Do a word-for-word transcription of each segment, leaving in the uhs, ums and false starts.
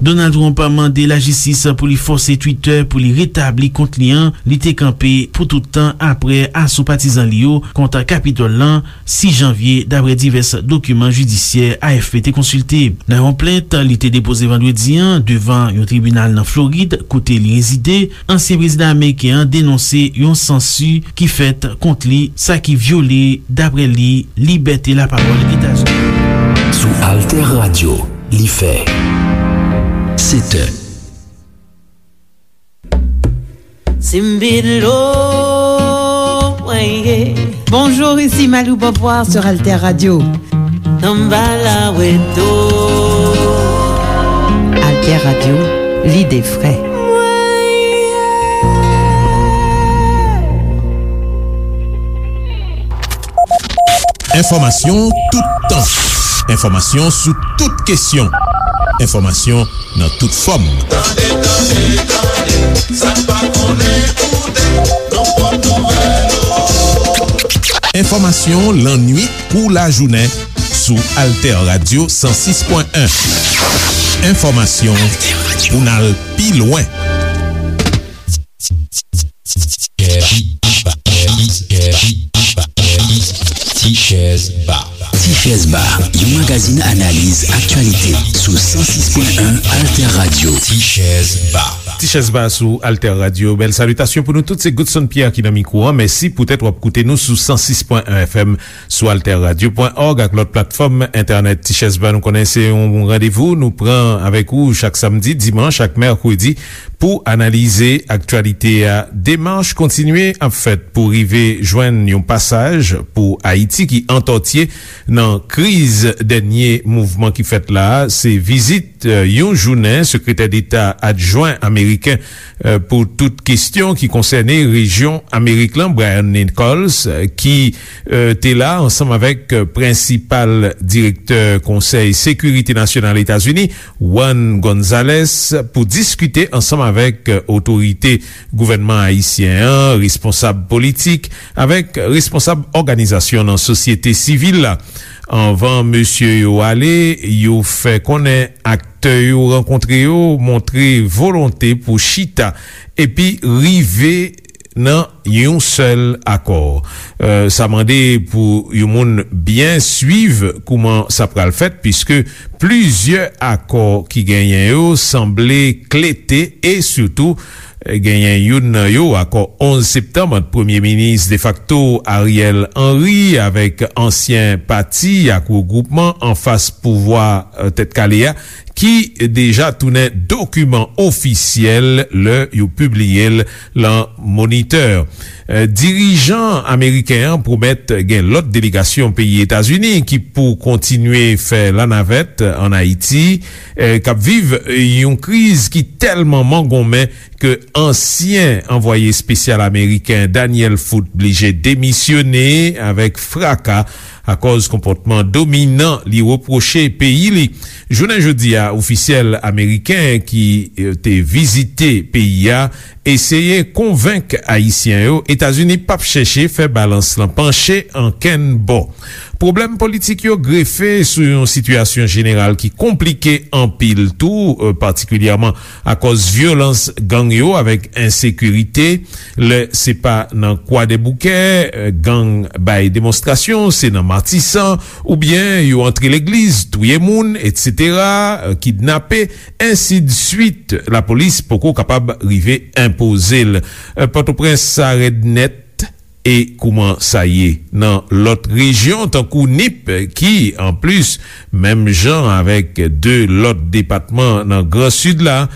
Donald Trump mande lajistis pou li fòse Twitter pou li retabli kont li an li te kanpe pou tout tan apre aso patizan li yo kont Kapitòl lan sis janvye, dapre divès dokiman jidisyè A F P te konsilte. Nan yon plent li te depoze vandredi an devan yon tribinal nan Florid, kote li rezide, ansyen prezidan ameriken an denonse yon sansi ki fèt kont li, sa ki vyole, dapre li, libète lapawòl Etazini. Sou Alter Radio, li fè sèt è. Simbidlo, mwen ye. Bonjour, ici Malou Beauvoir sur Alter Radio. Samba la weto. Alter Radio, lide fre. Enfòmasyon toutan. Enfòmasyon sou tout kesyon. Enfòmasyon nan tout fòm. Tande, tande, tande, sa n pa konnen koute, nan pòt nouvèl yo. Enfòmasyon lannwit kou lajounen sou Alter Radio san sis pwen en. Enfòmasyon pou n al pi lwen. Tichèz Ba. Tichèz Ba, yon magazin analiz aktyalite sou san sis pwen en Alter Radio. Tichèz Ba. Tichèz Ba sou Alter Radio. Bèl salitasyon pou nou tout. Se Godson Pierre ki nan mikwo an. Mèsi poutèt w ap koute nou sou san sis pwen en F M, sou alter radio pwen òg ak lòt platfòm entènèt. Tichèz Ba, nou konnen se yon randevou nou pran avèk ou chak samdi, dimanch ak mèkredi pou analize aktyalite a. Demach kontinye ap fèt pou rive jwenn yon pasaj pou Ayiti ki antòtye nan kriz dènye mouvman ki fèt la a. Se vizit, eh, yon jounen sekretè deta adjwen ameriken, eh, pou tout kesyon ki konsène rejyon Amerik lan, Brian Nichols, eh, ki, eh, te la ansanm avèk, eh, prensipal direktè Konsèy Sekirite Nasyonal Etazini, Juan Gonzalez, pou diskite ansanm avèk, eh, otorite gouvènman ayisyen an, responsab politik, avèk responsab òganizasyon nan sosyete sivil la. Anvan mesye yo ale, yo fè konnen aktè yo rankontre yo montre volonte pou chita epi rive nan yon sèl akò. Eh, sa mande pou yon moun byen swiv kouman sa pral fèt, piske plizyè akò ki genyen yo sanble klete e sitou, eh, genyen youn nan yo, akò onz septanm ant premye minis defakto Ariel Henry avèk ansyen pati ak regwoupman anfas pouvwa, eh, Tèt Kale a, ki deja tounen dokiman ofisyèl lè yo pibliye l lan Moniteur. Eh, dirijan ameriken an pwomèt gen lòt delegasyon peyi Etazini ki pou kontinye fè lanavèt ann Ayiti, eh, k ap viv yon kriz ki tèlman mangonmen ke ansyen anvwaye espesyal ameriken Daniel Foote blije demisyone avèk fraka akòz konpòtman dominan li repwoche peyi li. Jounen jodi a, ofisyèl ameriken ki, eh, te vizite peyi a eseye konvenk Ayisyen yo Etazini p ap chèche fè balans lan panche ankenn bò. Pwoblèm politik yo grefe sou yon sitiyasyon jeneral ki konplike anpil tou, eh, patikilyèman akòz vyolans gang yo avèk ensekirite. Lè se pa nan Kwadèboukè, eh, gang bay demonstrasyon, se nan Matisan, oubyen yo antre legliz, touye moun, etsetera, eh, kidnape, ensidswit. Lapolis poko kapab rive enpoze l. Eh, Pòtoprens sa rèd nèt. E kouman sa ye nan lòt rejyon, tankou Nip, ki, anplis, menm jan avèk de lòt depatman nan Gran Sid la,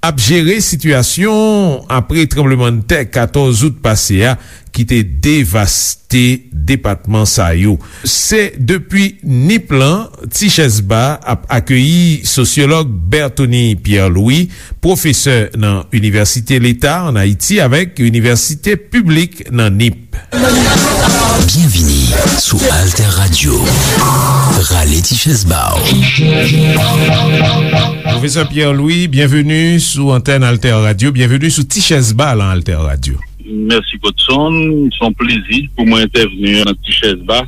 ap jere sitiyasyon apre tranblemanntè katòz out pase a, ki te devaste depatman sa yo. Se depi Nip lan, Tichèz Ba ap akeyi sosyològ Berthony Pierre Louis, pwofesè nan Inivèsite Leta ann Ayiti avèk Inivèsite Piblik nan Nip. Byenvini sou Alter Radio. Rale Tichèz Ba w. Pwofesè Pierre Louis, byenveni sou antèn Alter Radio. Byenveni sou Tichèz Ba lan Alter Radio. Mèsi, Godson. Se yon plezi pou mwen entèvni nan Tichèz Ba.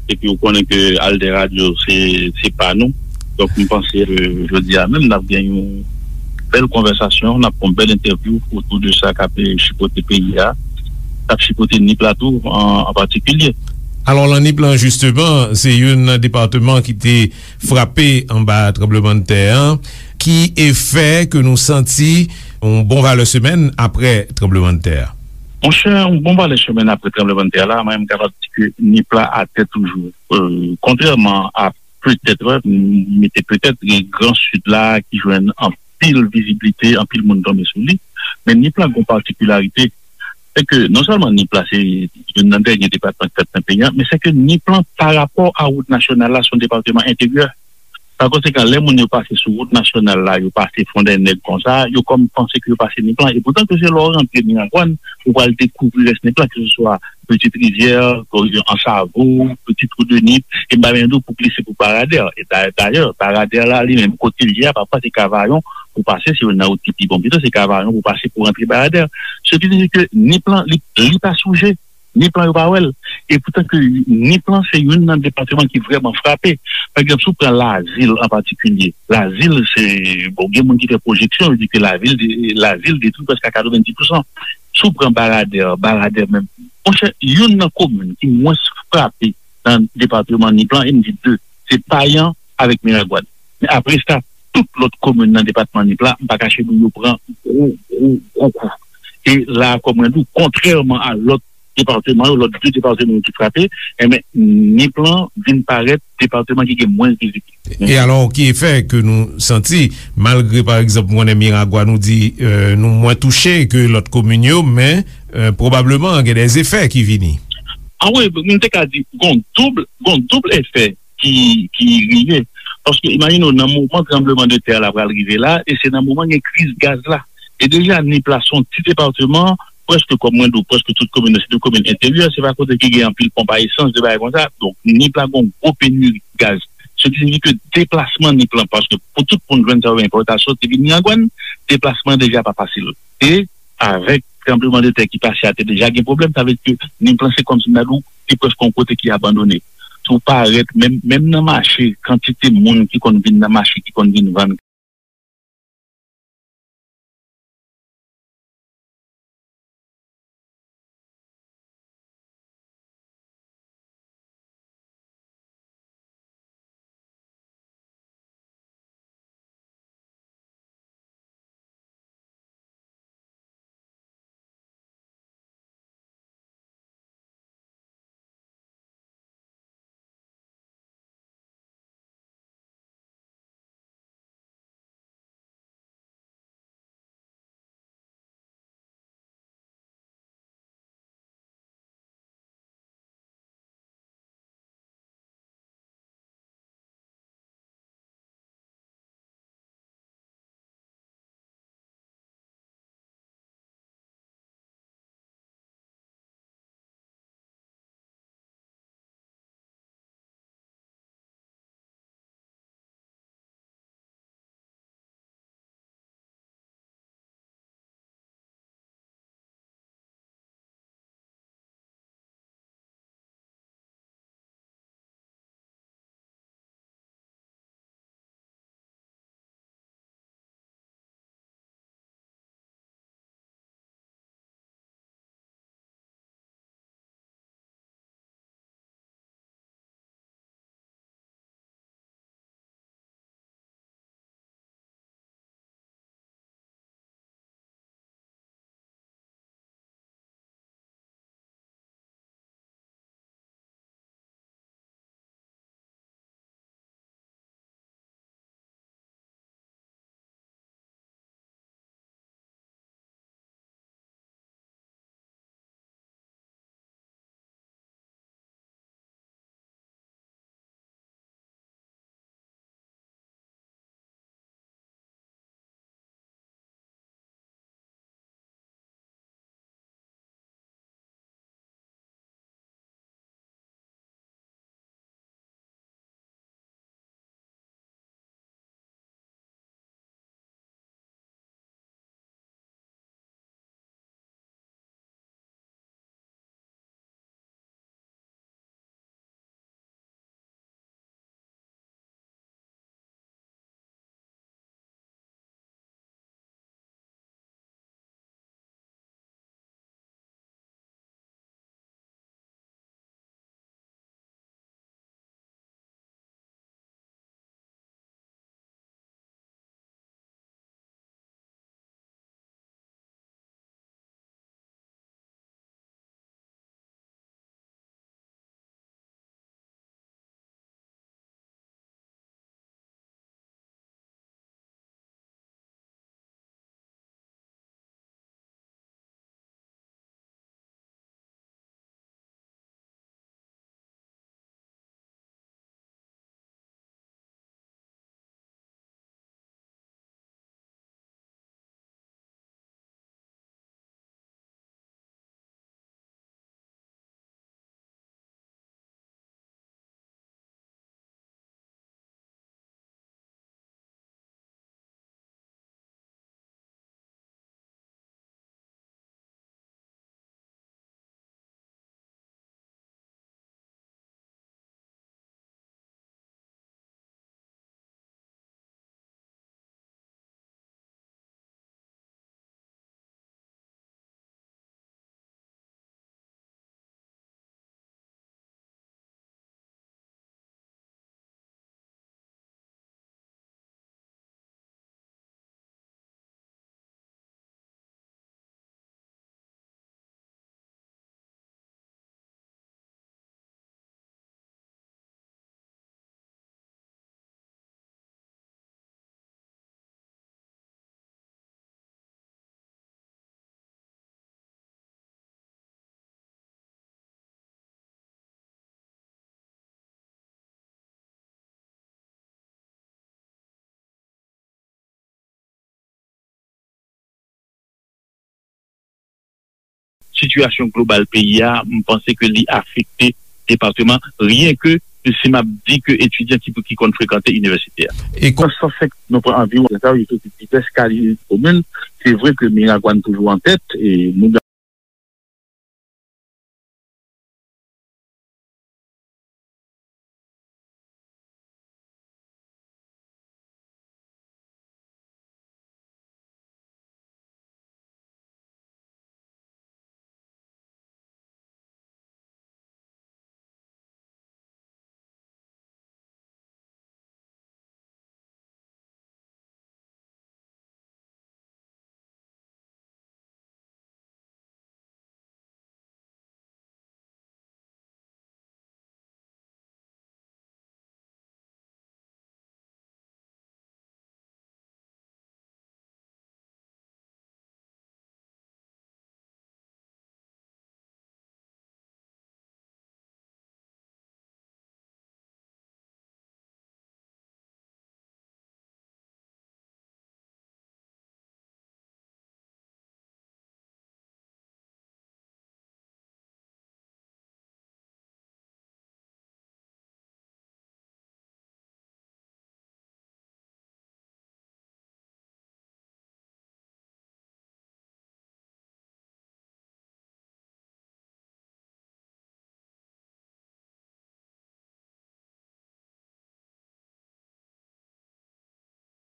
Epi, ou konnen ke Alter Radio, se, se pa nou. Donk, m panse ke jodi a menm, n ap gen yon bèl konvèsasyon, n ap fè yon bèl entèvyou otou de sa k ap, eh, chipote peyi a, k ap chipote Nip la tou an, an patikilye. Alò, nan Nip lan, jisteman, se youn nan depatman ki te frape anba tranblemanntè an. Ki efè ke nou santi yon bon valè semèn apre tranblemanntè a? Monchè, yon bon valè semèn apre tranblemanntè a la, mwen, m kapab di ke Nip la atè toujou. Euh, kontrèman a petèt, m mete petèt, gen Gran Sid la ki jwenn anpil viziblite, anpil moun tonbe sou li, men Nip la gen yon patikilarite, se ke non sèlman Nip la se youn nan dènye depatman ki fèt nan peyi a, men se ke Nip la, pa rapò a wout nasyonal la, se yon depatman enteryè. Pa konsekan, lè moun yo pase sou wout nasyonal la, yo pase Fondènèg konsa, yo kòm panse ke yo pase Nip la. E poutan ke se lè w rantre Miragwàn, ou pral dekouvri rès Nip la, ke se swa Petite Rivière, Ansavo, Petit Trou de Nip, e m pa menm di w pou glise pou Baradè. E da-, dayè, Baradè la, li menm, kote l ye a, pafwa se Kavayon pou pase, se youn nan wout ki pi bon pito, se Kavayon pou pase pou rantre Baradè. Se ki di ke Nip la, li, li pa souje. Nip lan yo pa wè l. E poutan ke Nip lan se youn nan depatman ki vrèman frape. Pa egzanp, si w pran Lazil an patikilye, Lazil se, bon, gen moun ki fè pwojeksyon, yo di ke lavil de, Lazil detwi prèske a katrevenndis pousan. Si w pran Baradè, Baradè menm, monchè, youn nan komin ki mwens frape nan depatman Nip lan, e m di de, se Payan avèk Miragwàn. Men apre sa, tout lòt komin nan depatman Nip la, m pa kache nou, yo pran gwo, gwo, gwo kou. E la, kòm mwen di w, kontrèman a lòt depatman yo, lòt de depatman yo ki frape, enben, Nip lan vin parèt depatman ki gen mwens vizibilite. E alò, ki efè ke nou santi, malgre, pa egzanp, m konnen Miragwàn, nou di, euh, nou mwens touche ke lòt komin yo, men, euh, pwobableman, gen de efè ki vini. A wi, m te ka di, gon doub, gon doub efè ki, ki rive. Paske imajine w, nan moman tranbleman de tè la pral rive la, e se nan moman gen kriz gaz la. E deja, Nip la se yon ti depatman, prèske kòm mwen di w, prèske tout komin nan, se de komin enteryè, se pa kote ki gen anpil ponp a esans, de bagay konsa. Donk, Nip la gen yon gwo peniri gaz. Se ki siyifi ke deplasman Nip lan, paske pou tout moun jwenn sa yo enpòtasyon, te vin Miragwàn, deplasman deja pa fasil. E avèk tranbleman de tè ki pase a, te deja gen pwoblèm, sa vle di ke Nip lan se kòmsi m ta di w, se prèske yon kote ki abandone. Si w parèt, menm, menm nan mache, kantite moun ki konn vin nan mache, ki konn vin vann, sitiyasyon global peyi a, m panse ke li afekte depatman, ryen ke si m ap di ke etidyan ki, ki konn frekante inivèsite a. E kon- Nan san senk, nou pran anviwon, sa yo soti divès kalite komin. Se vre ke Miragwàn toujou an tèt, e nou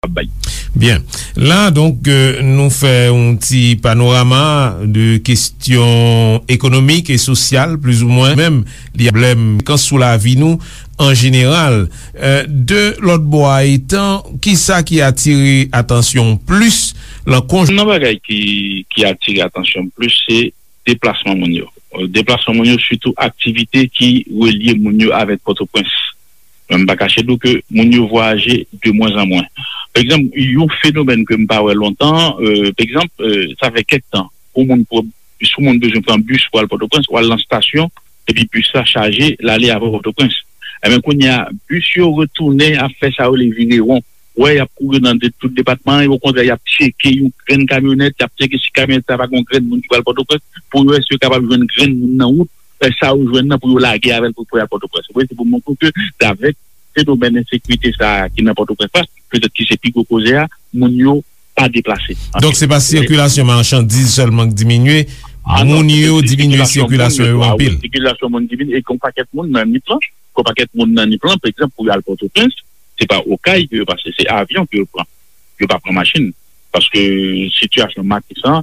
ap bay. Byen. La, donk, euh, nou fè yon ti panorama de kesyon ekonomik e sosyal, plizoumwen, menm li pwoblèm konsekans sou lavi nou an jeneral. Euh, de lòt bò a, etan, kisa ki atire atansyon plis lan konj- Nan bagay ki, ki atire atansyon plis, se deplasman moun yo. Deplasman moun yo, sitou aktivite ki relye moun yo avèk Pòtoprens. Men m pa kache di w ke moun yo vwayaje de mwen an mwen. Pa egzanp, yon fenomèn ke m pa wè lontan, euh, pa egzanp, euh, sa fè kèk tan, pou moun, pou, si moun bezwen pran bis pou al Pòtoprens, ou al nan estasyon, epi bis la chaje, l ale avè w Pòtoprens. Enben, kounye a, bis yo retounen ap fè sa yo rele vire won. Wè, y ap kouri nan de, tout depatman an, e okontrè, y ap tcheke yon grenn kamyonèt, y ap tcheke si kamyonèt sa pa gen yon grenn moun ki pral Pòtoprens, pou yo wè si yo kapab jwenn grenn moun nan wout, e sa yo jwenn nan pou yo lage avè l pou, pou y al Pòtoprens. Wi, se pou montre w ke, avèk fenomèn ensekirite sa a ki nan Pòtoprens la, petèt ki se pi gwo koze a, moun yo pa deplase. Donk, se pa sikilasyon machandiz sèlman k diminye, moun yo diminye sikilasyon yo anpil. Sikilasyon moun diminye, e gen yon pakèt moun nan Nip lan, gen yon pakèt moun nan Nip lan, pa egzanp, pou y al Pòtoprens, se pa Okay ke yo pase, se avyon ke yo pran. Yo pa pran machin. Paske sitiyasyon Matisan,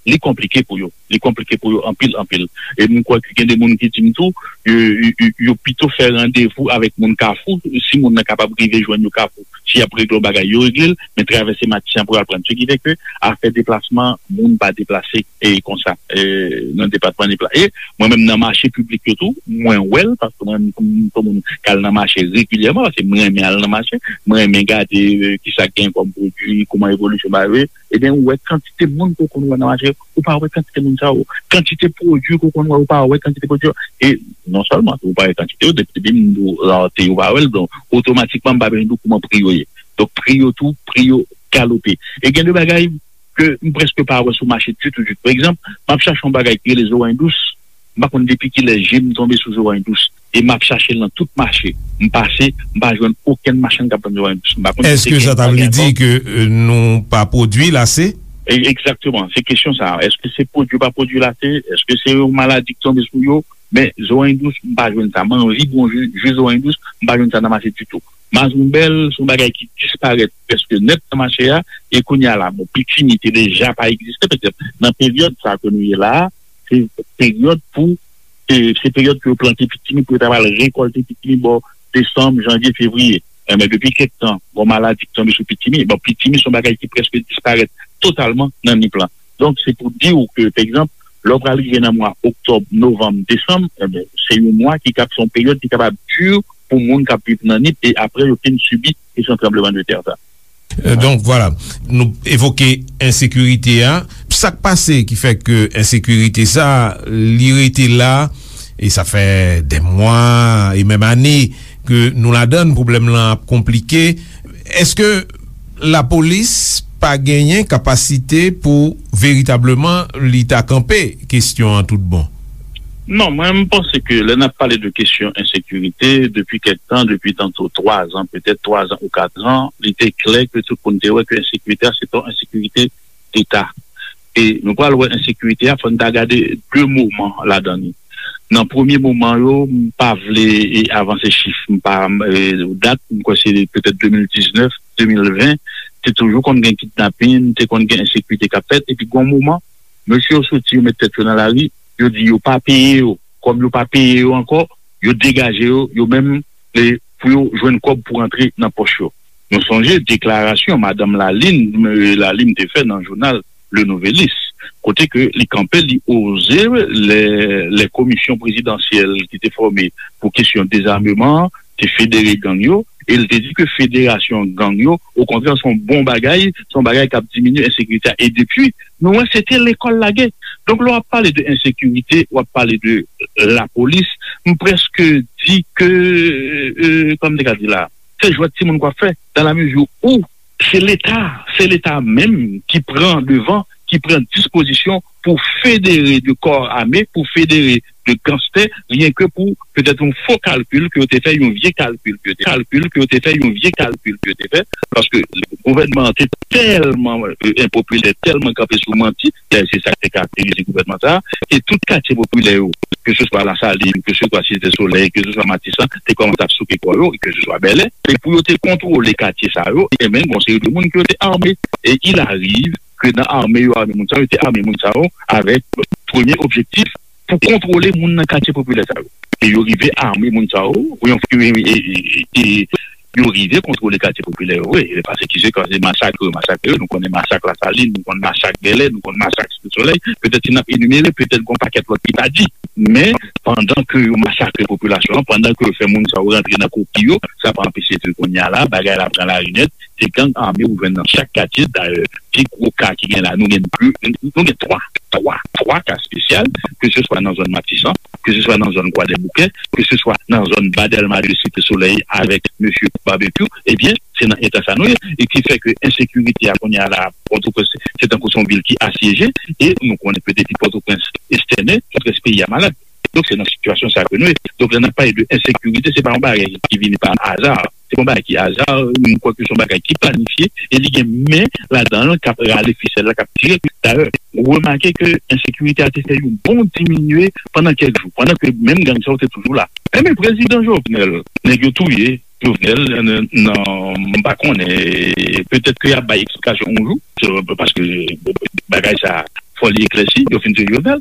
li konplike pou yo. Li konplike pou yo anpil, anpil. E m kwè ke gen de moun ki di m tou, yo, yo, yo, yo pito fè randevou avèk moun Kafou. Si moun nan kapab rive jwenn yo Kafou, si y ap regle yon bagay, yo regle l, men travèse Matisan pou y al pran. Se ki fè ke afè deplasman, moun pa deplase e konsa, e nan depatman Nip la. E mwen menm nan mache piblik yo tou, mwen wè l, paske mwen menm m se yon moun k al nan mache regilyèman, paske mwen renmen al nan mache, mwen renmen gade, e, kisa k gen kòm pwodui, kòman evolisyon bagay yo ye. Ebyen, ou wè kantite moun ke w konn wè nan mache, ou pa wè kantite moun sa yo. Kantite pwodui ke w konn wè, ou pa wè kantite pwodui yo. E non sèlman ou pa wè kantite yo, depi, depi m di w rarite, ou pa wè l, donk, otomatikman, m pa bezwen di w kòman pri yo ye. Donk, pri yo tou, pri yo galope. E gen de bagay ke m prèske pa wè sou mache ditou, ditou. Pa egzanp, m ap chache yon bagay ki rele zoranj dous. M pa konn depi kilè je m tonbe sou zoranj dous. E m ap chache l nan tout mache. M pase, m pa jwenn okenn machann k ap vann zoranj dous. M pa konn si se... Èske sa ta vle di ke, euh, nou pa pwodui l ase? E, egzakteman, se kesyon sa a. Èske se pwodui yo pa pwodui l ase? Èske se yon maladi ki tonbe sou yo? Men zoranj dous, m pa jwenn sa. M anvi bwè yon ji, ji zoranj dous, m pa jwenn sa nan mache ditou. Mazonbèl, se yon bagay ki disparèt prèske nèt nan mache a, e kounye a la, bon, pitimi te deja pa egziste, petèt nan peryòd sa a ke nou ye la a, se peryòd pou, se, se peryòd ke yo plante pitimi, pou yo ta pral rekòlte pitimi bò desanm, janvye, fevriye. Enben, depi kèk tan, gon maladi ki tonbe sou pitimi. Bon, pitimi se yon bagay ki prèske disparèt totalman nan Nip lan. Donk, se pou di w ke, pa egzanp, lè w pral rive nan mwa oktòb, novanm, desanm, enben, se yon mwa ki kab, se yon peryòd ki kapab di pou moun k ap viv nan Nip, e apre yo fin sibi kesyon tranblemanntè sa. Euh, donk, vwala, nou evoke ensekirite a. Sa k pase ki fè ke ensekirite sa, li rete la, e sa fè dè mwa, e menm ane, ke nou ladann, pwoblèm lan ap konplike. Èske lapolis pa genyen kapasite pou veritableman li ta kanpe kesyon an tout bon? Non, mwen, m panse ke lè n ap pale de kesyon ensekirite, depi kèk tan, depi tanto twa zan, petèt twa zan ou kat zan, li te klè ke tout moun te wè ke ensekirite a, se pa yon ensekirite deta. E nou pral wè ensekirite a, fò n ta gade de moman ladan li. Nan premye moman yo, m pa vle, e, avanse chif, m pa, e, dat, m kwè se petèt de mil diznèf, de mil ven, te toujou konn gen kidnapin, te konn gen ensekirite k ap fèt, epi gon moman, mesye yo soti, yo met tèt yo nan lari, yo di yo pa peye yo. Kòm yo pa peye yo ankò, yo degaje yo, yo menm, e, pou yo jwenn kòb pou rantre nan pòch yo. Nou sonje deklarasyon madanm Lalime, e, Lalime te fè nan jounal Le Nouvelliste, kote ke li kanpe, li oze lè, lè komisyon prezidansyèl ki te fòme pou kesyon dezameman an te federe gang yo, e l te di ke federasyon gang yo, okontrè, se yon bon bagay, se yon bagay k ap diminye ensekirite a. E depi, nou wè, se te lekòl lage. Donk, lè w ap pale de ensekirite, w ap pale de lapolis, m prèske di ke, e, kòman m te ka di la, se jwèt timoun k w ap fè, dans la mesure où se Leta, se Leta menm ki pran devan, ki pran dispozisyon pou federe de kò ame, pou federe de ganstè, ryen ke pou petèt yon fo kalkil ke yo te fè, yon vye kalkil ke yo te, kalkil ke yo te fè, yon vye kalkil ke yo te fè, paske gouvènman an te tèlman, e, enpopilè, tèlman kanpe sou manti, dayè se sa k te karakterize gouvènman sa a, e tout katye popilè yo, ke se swa Lasalin, ke se swa Site Solèy, ke se swa Matisan, te kòmanse ap souke kò yo, e ke se swa Bèlè, e pou yo te kontwole katye sa yo, e menm gon seri de moun ke yo te ame. E il arrive ke nan ame yo ame moun sa yo, yo te ame moun sa yo avèk premye objektif pou kontwole moun nan katye popilè sa yo. E yo rive ame moun sa yo, pou yon, e, e, e, e, yo rive kontwole katye popilè yo, wi. E pase ki se kòz de masakre, masakre, nou konnen masak Lasalin, nou konnen masak Bèlè, nou konnen masak Site Solèy, petèt si n ap enimere, petèt gon pakèt lòt ki pa di. Men, pandan ke yo masakre popilasyon an, pandan ke yo fè moun sa yo rantre nan koki yo, sa pa anpeche ke kounye a la, bagay la pran lari nèt, se gang ame ou jwenn nan chak katye. Dayè, pi gwo ka ki gen la, nou gen pli, nou gen twa, twa, twa ka espesyal, ke se swa nan zòn Matisan, ke se swa nan zòn Kwadèboukè, ke se swa nan zòn Ba Dèlma de Site Solèy avèk mesye Babekyou, ebyen, se nan eta sa nou ye, e ki fè ke ensekirite a kounye a la, Pòtoprens, se tankou se yon vil ki asyeje, e nou konnen ke depi Pòtoprens estène, tout rès peyi a malad. Donk, se nan sitiyasyon sa ke nou ye. Donk, lè n ap pale de ensekirite, se pa yon bagay ki vini pa aza. Se pa yon bagay ki aza, m kwè ke se yon bagay ki planifye, e li gen men ladan l k ap rale fisèl la, k ap tire. Dayè, remake ke ensekirite a te fè yon bon diminye pandan kèk jou, pandan ke menm gang sa yo te toujou la. Enben, prezidan Jovenel, nèg yo touye Jovenel, nan, nan, m pa konnen, petèt ke y ap bay eksplikasyon yon jou, se, paske bagay sa, fò li eklèsi, yo fin touye Jovenel.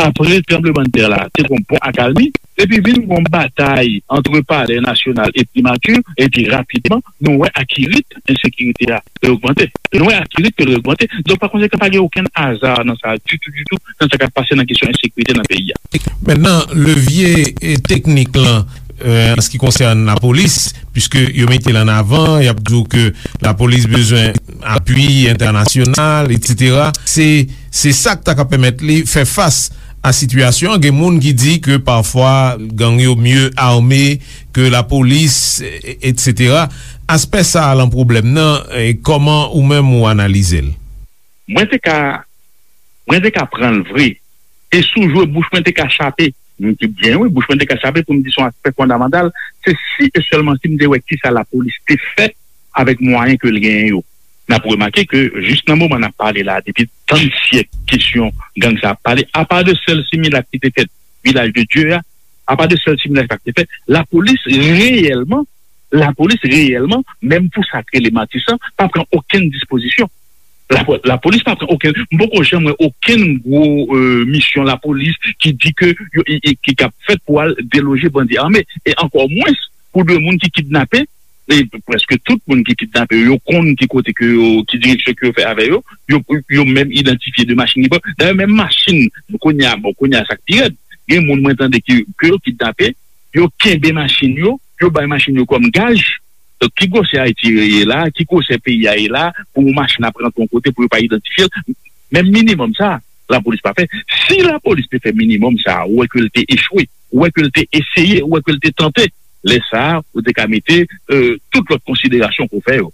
Apre tranblemanntè la, te gon bon akalmi, epi vin gon batay antre Palè Nasyonal e Primati, epi rapidman, nou wè akirit ensekirite a ogmante. Nou wè akirit ke l ogmante. Donk, pa konsekan, pa gen okenn aza nan sa, ditou, ditou, nan sa k ap pase nan kesyon ensekirite nan peyi a. Mentnan, levye, e, teknik lan, e, an se ki konsène lapolis, piske yo mete l an avan, y ap di w ke lapolis bezwen apui entènasyonal, etsetera. Se, se sa k ta ka pèmèt li fè fas a sitiyasyon an. Gen moun ki di ke pafwa gang yo mye ame ke lapolis, e, etsetera. Aspè sa a lan pwoblèm nan, e, kòman ou menm ou analize l? Mwen te ka, mwen te ka pran l vre. E si w jwe bouch mwen te ka chape. M di byen wi, bouch mwen te ka chape pou m di se yon aspè fondamantal. Se si e sèlman si m te wè kisa lapolis te fè avèk mwayen ke l genyen yo. N ap remake ke jis nan moman n ap pale la, depi tann syèk kesyon gang sa ap pale, apa de sèl similak ki te fèt Vilaj de Dye a, apa de sèl similak sa ki te fèt, lapolis reyèlman, lapolis reyèlman, menm pou sa k rele Matisan, pa pran okenn dispozisyon. Lapo-, lapolis pa pran okenn, m poko janm wè okenn gwo, e, misyon lapolis ki di ke yo, i, i, ki, k ap fèt pou al deloje bandi ame, e ankò mwens pou de moun ki kidnape, e prèske tout moun ki kidnape yo, yo konn ki kote ke yo, ki direksyon ke yo fè avè yo, yo, yo menm idantifye de machin ki pran. Dayè, menm machin, kounye a, bon, kounye a sa k pi rèd, gen moun mwen tande ki, ke yo kidnape, yo kenbe machin yo, yo bay machin yo kòm gaj. Donk, ki gwosè Ayiti ye la, ki gwosè peyi a ye la, pou yon machin ap rantre yon kote pou yo pa idantifye l? Menm minimòm sa, lapolis pa fè. Si lapolis te fè minimòm sa, ou wè ke l te echwe, ou wè ke l te eseye, ou wè ke l te tante, lè sa a, ou te ka mete, e, tout lòt konsiderasyon ke w fè yo.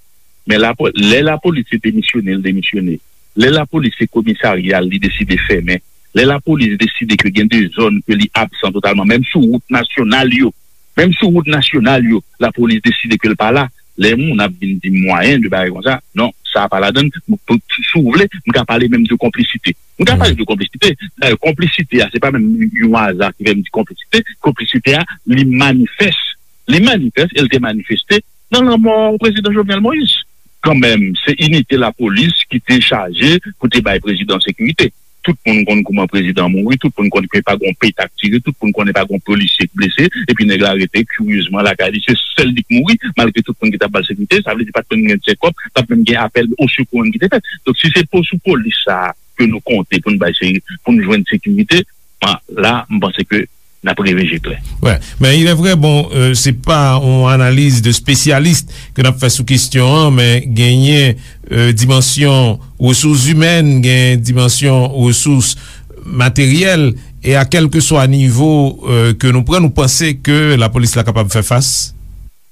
Men lapo- lè lapolis se demisyone, l demisyone. Lè lapolis se komisarya, li deside fèmen. Lè lapolis deside ke gen de zòn ke li absan totalman, menm sou wout nasyonal yo, menm sou wout nasyonal yo, lapolis deside ke l pa la. Lè moun ap vin di m mwayen de bagay konsa, non, sa pa ladan l. M- pou- si w vle, m ka pale menm de konplisite. M ka pale de konplisite. Dayè, konplisite a, se pa menm yon aza ki fè m di konplisite. Konplisite a, li manifès. Li manifès e l te manifeste nan lanmò prezidan Jovenel Moïse. Kanmenm, se inite lapolis ki te chaje pou te bay prezidan sekirite. Tout moun konn kouman prezidan mouri, tout moun konn ke pa gon pet ak tire, tout moun konnen pa gon polisye k blese, epi nèg la rete kiryezman lakay li, se sèl li k mouri, malgre tout moun ki t ap ba l sekirite, sa vle di pa t menm gen tchèkòp, pa t menm gen apèl osekou ki te fèt. Donk, si se po sou polis sa a ke nou konte pou n bay se- pou n jwenn sekirite, la, m panse ke n ap reve je klè. Wè, men il est vrai, bon, euh, se pa yon analiz de spesyalis ke n ap fè sou kesyon an, men genyen euh, dimansyon resous imèn, gen dimansyon resous materyèl, e a kèlkeswa nivo euh, ke nou pran, nou panse ke lapolis la kapab fè fas?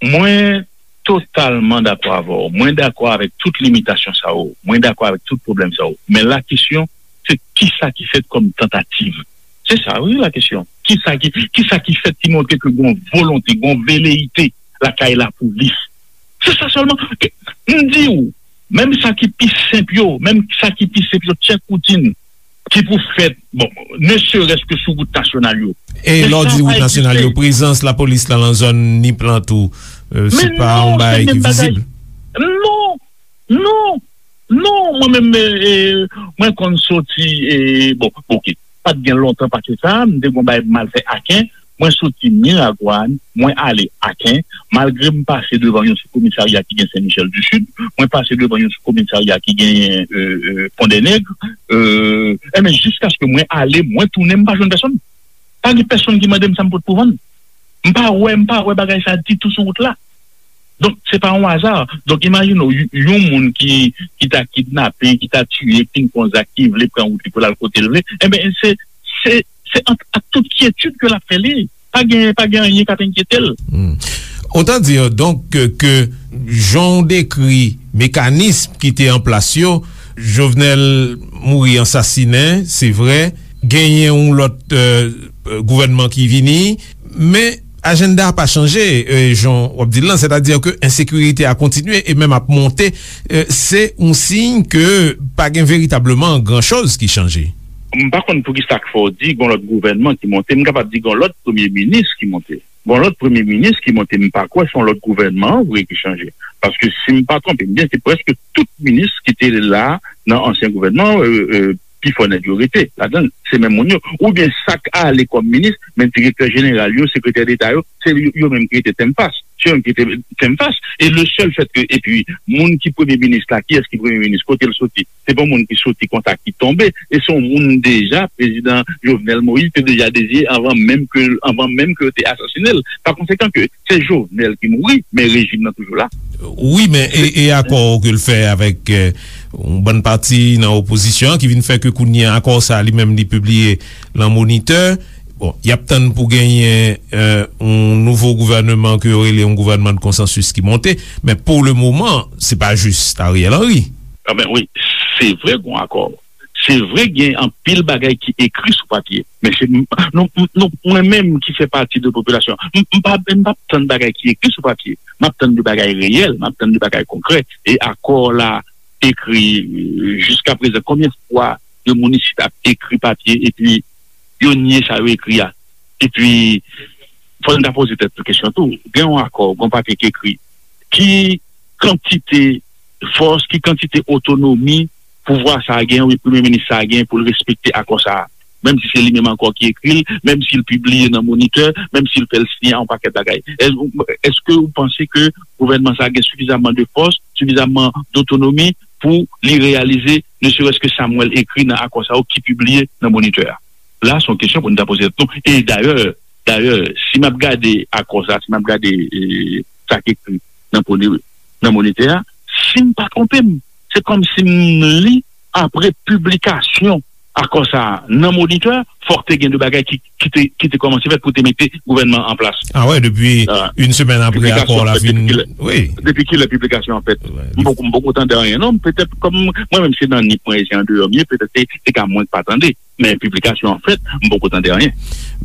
Mwen totalman dakò avè w. Mwen dakò avèk tout limitasyon sa yo. Mwen dakò avèk tout pwoblèm sa yo. Men la kesyon, se kisa ki fèt kòm tantativ? Se sa, wi, la kesyon. Kisa ki, kisa ki fèt ki montre ke gon volonte, gon veleyite lakay lapolis? Se sa sèlman. M di w, menm sa ki pi senp yo, menm sa ki pi senp yo, tchèk woutin ki pou fèt, bon, ne serait-ce que sou wout nasyonal yo. E lè w di wout nasyonal yo, prezans lapolis la nan zòn Nip lan tou, euh, se pa yon bagay ki vizib? Non, non, non, mwen menm, eh, eh, mwen konn soti, eh, bon, oke, pa t gen lontan pase sa, m te gon bagay m al fè Aken, mwen soti Miragwàn, mwen ale Aken, malgre m pase devan yon sou komisarya ki gen Sen Michèl di Sid, mwen pase devan yon sou komisarya ki gen euh, euh, Pon dè Nèg, euh, enben, jiskaske mwen ale, mwen tounen, m pa jwenn pèsonn. Pa gen pèsonn ki mande m sa m pot pou vann. M pa wè, m pa wè bagay sa ditou sou wout la. Donk, se pa yon aza. Donk, imajine w, y- yon moun ki, ki ta kidnape, ki ta tiye, ki fin fè yon zak, ki vle pran wout li pou l al kote l vle, enben, se, se, se an- ak tout kyetid ke l ap fè li. Pa gen, pa gen anyen k ap enkyete l. Hmm. Autant dire donc que, que jan w dekri mekanism ki te an plas yo, Jovenel mouri ansasinen, se vre, genyen yon lòt euh, gouvènman ki vini, men ajanda a pa chanje, euh, jan w ap di l lan, sètadi ke ensekirite a kontinye e menm ap monte, euh, se yon siy ke pa gen veritableman gran choz ki chanje. M pa konn poukisa k fè w di gon lòt gouvènman ki monte. M kapab di gon lòt premye minis ki monte. Gon lòt premye minis ki monte. M pa kwè se yon lòt gouvènman an vre ki chanje. Paske si m pa twonpe m byen, se prèske tout minis ki te la nan ansyen gouvènman, euh, euh, pifò nèg yo rete ladan l. Se menm moun yo. Oubyen sa k ale kòm minis, men direktè jeneral yo, sekretè deta yo, se yo, yo menm ki rete tèm fas. Se yo menm ki rete tèm fas. E le sèl fèt ke, epi, moun ki premye minis la, kiyès ki premye minis, kote l soti? Se pa yon moun ki soti konsa, ki tonbe. E se yon moun deja, prezidan Jovenel Moïse te deja deziye anvan menm ke, anvan menm ke yo te asasinen l. Pa konsekan ke se Jovenel ki mouri, men rejim nan toujou la. Wi, men e, e akò ke l fè avèk euh, yon bann pati nan opozisyon an ki vin fè ke kounye a akò sa li menm li pibliye nan Monitè. Bon, y ap tann pou genyen euh, yon nouvo gouvènman ke yo rele yon gouvènman de konsansis ki monte, men pou le moman, se pa jis Ariel Henry. Anben wi, se vre gon akò. Se vre gen anpil bagay ki ekri sou papye, men se nou, nou, mwen menm ki fè pati de popilasyon, m, m pa, m p ap tann bagay ki ekri sou papye. M ap tann de bagay reyèl, m ap tann de bagay konkrè. E akò la ekri euh, jiska prezan, konbyen fwa de moun isit ap ekri papye epi yo nye sa yo ekri a? Epi, fò n ta poze tèt nou kesyon tou. Gen yon akò, gen yon papye ki ekri. Ki kantite fòs, ki kantite otonomi pouvwa sa a gen, wi, premye minis sa a gen pou l respekte akò sa a? Menm si se li menm ankò ki ekri l, menm si l pibliye nan Monitè, menm si l fè l siyen yon pakèt bagay. Èske w panse ke gouvènman sa a gen sifizamman de fòs, sifizamman dotonomi pou li reyalize ne serait-ce que sa m wè l ekri nan akò sa yo ki pibliye nan Monitè a? La, se yon kesyon pou n ta poze tèt nou. E dayè, dayè, si m ap gade akò sa, si m ap gade eh, sa k ekri nan Pone- nan Monitè a, si m pa twonpe m, se kòmsi m li apre piblikasyon akò sa a nan Monitè, fòk te gen de bagay ki, ki te, ki te kòmanse fèt pou te mete gouvènman an plas. Ah wè, depi Ah. Yon semèn apre akò a fin. Wi. Depi kilè piblikasyon an fèt? Wi. M poko, m poko tande anyen, non. Petèt, kòm mwen menm se nan Nip mwen ye, se andeyò m ye, petèt se, se ka mwen k pa tande. Men piblikasyon an fèt, m poko tande anyen.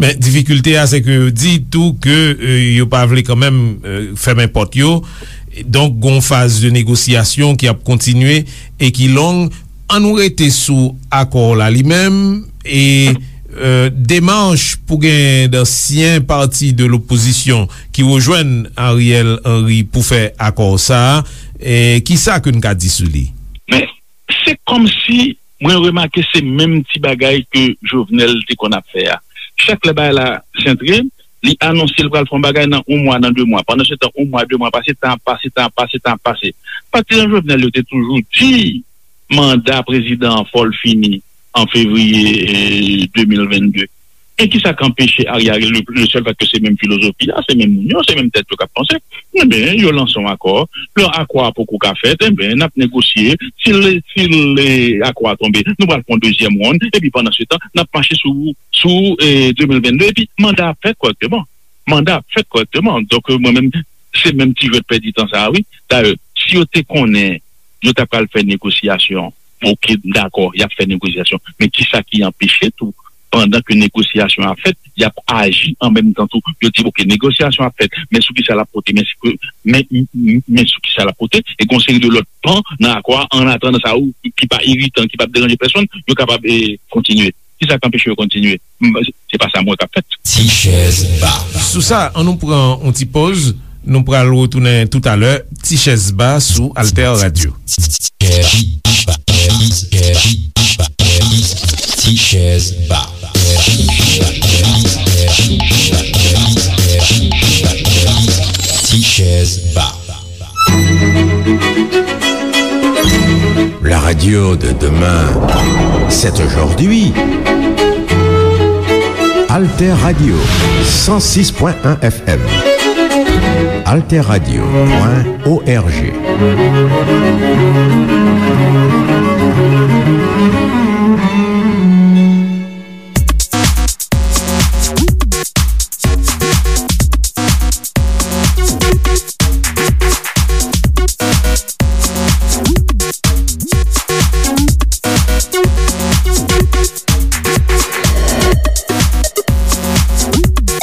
Men difikilte a, se ke yo di tou ke, euh, yo pa vle kanmenm, euh, fèmen pòt yo. Donk, gon faz de negosyasyon ki ap kontinye e ki long. An nou rete sou akò la li menm e, euh, demach pou gen dansyen pati de lopozisyon ki rejwenn Ariel Henry pou fè akò sa a, e kisa ke n ka di sou li? Men, se kòmsi mwen remake se menm ti bagay ke Jovenel te konn ap fè a. Chak lè bagay la sentre, li anonse l pral fè yon bagay nan yon mwa, nan de mwa. Pandan se tan, yon mwa, de mwa pase, tan ap pase, tan ap pase, tan ap pase. Patizan Jovenel yo te toujou di manda prezidan an fò l fini an fevriye, eh, de mil vennde. E kisa k anpeche Ariel, le, le sèl fèt ke se menm filozofi a, se menm moun yo, se menm tèt yo k ap panse? Enben, yo lanse yon akò. Lè akò a poko ka fèt, enben, n ap negosye. Si l, si l, eh, akò a tonbe, nou pral fè yon dezyèm wonn. Epi pandan se tan, n ap mache sou, sou, eh, de mil vennde. Epi manda a fèt kòrèkteman. Manda a fèt kòrèkteman. Donk, mwen menm, se menm ti jwèt pèdi tan sa a, wi. Dayè, si yo te konnen yo ta pral fè negosyasyon, oke, m dakò, y ap fè negosyasyon. Men kisa ki anpeche tou, pandan ke negosyasyon ap fèt, y ap aji an menm tan tou? Yo di, oke, negosyasyon ap fèt, men sou kisa l ap pote, men si ke, men, men, men sou kisa l ap pote, e gon seri de lòt pan nan akò a, an atandan sa, ou, ki pa iritan, ki p ap deranje pèsonn, yo kapab, eh, kontinye. Kisa k anpeche yo kontinye? M, se pa sa m wè k ap fèt. Ti chèz ba. Sou sa, an nou pran yon ti pòz. Nou pral retounen toutalè. Ti chèz ba sou Alter Radio. Ti chèz ba. Ti chèz ba. La radio de demain, c'est aujourd'hui. Alter Radio, cent six point un F M. Alter Radio point O R G.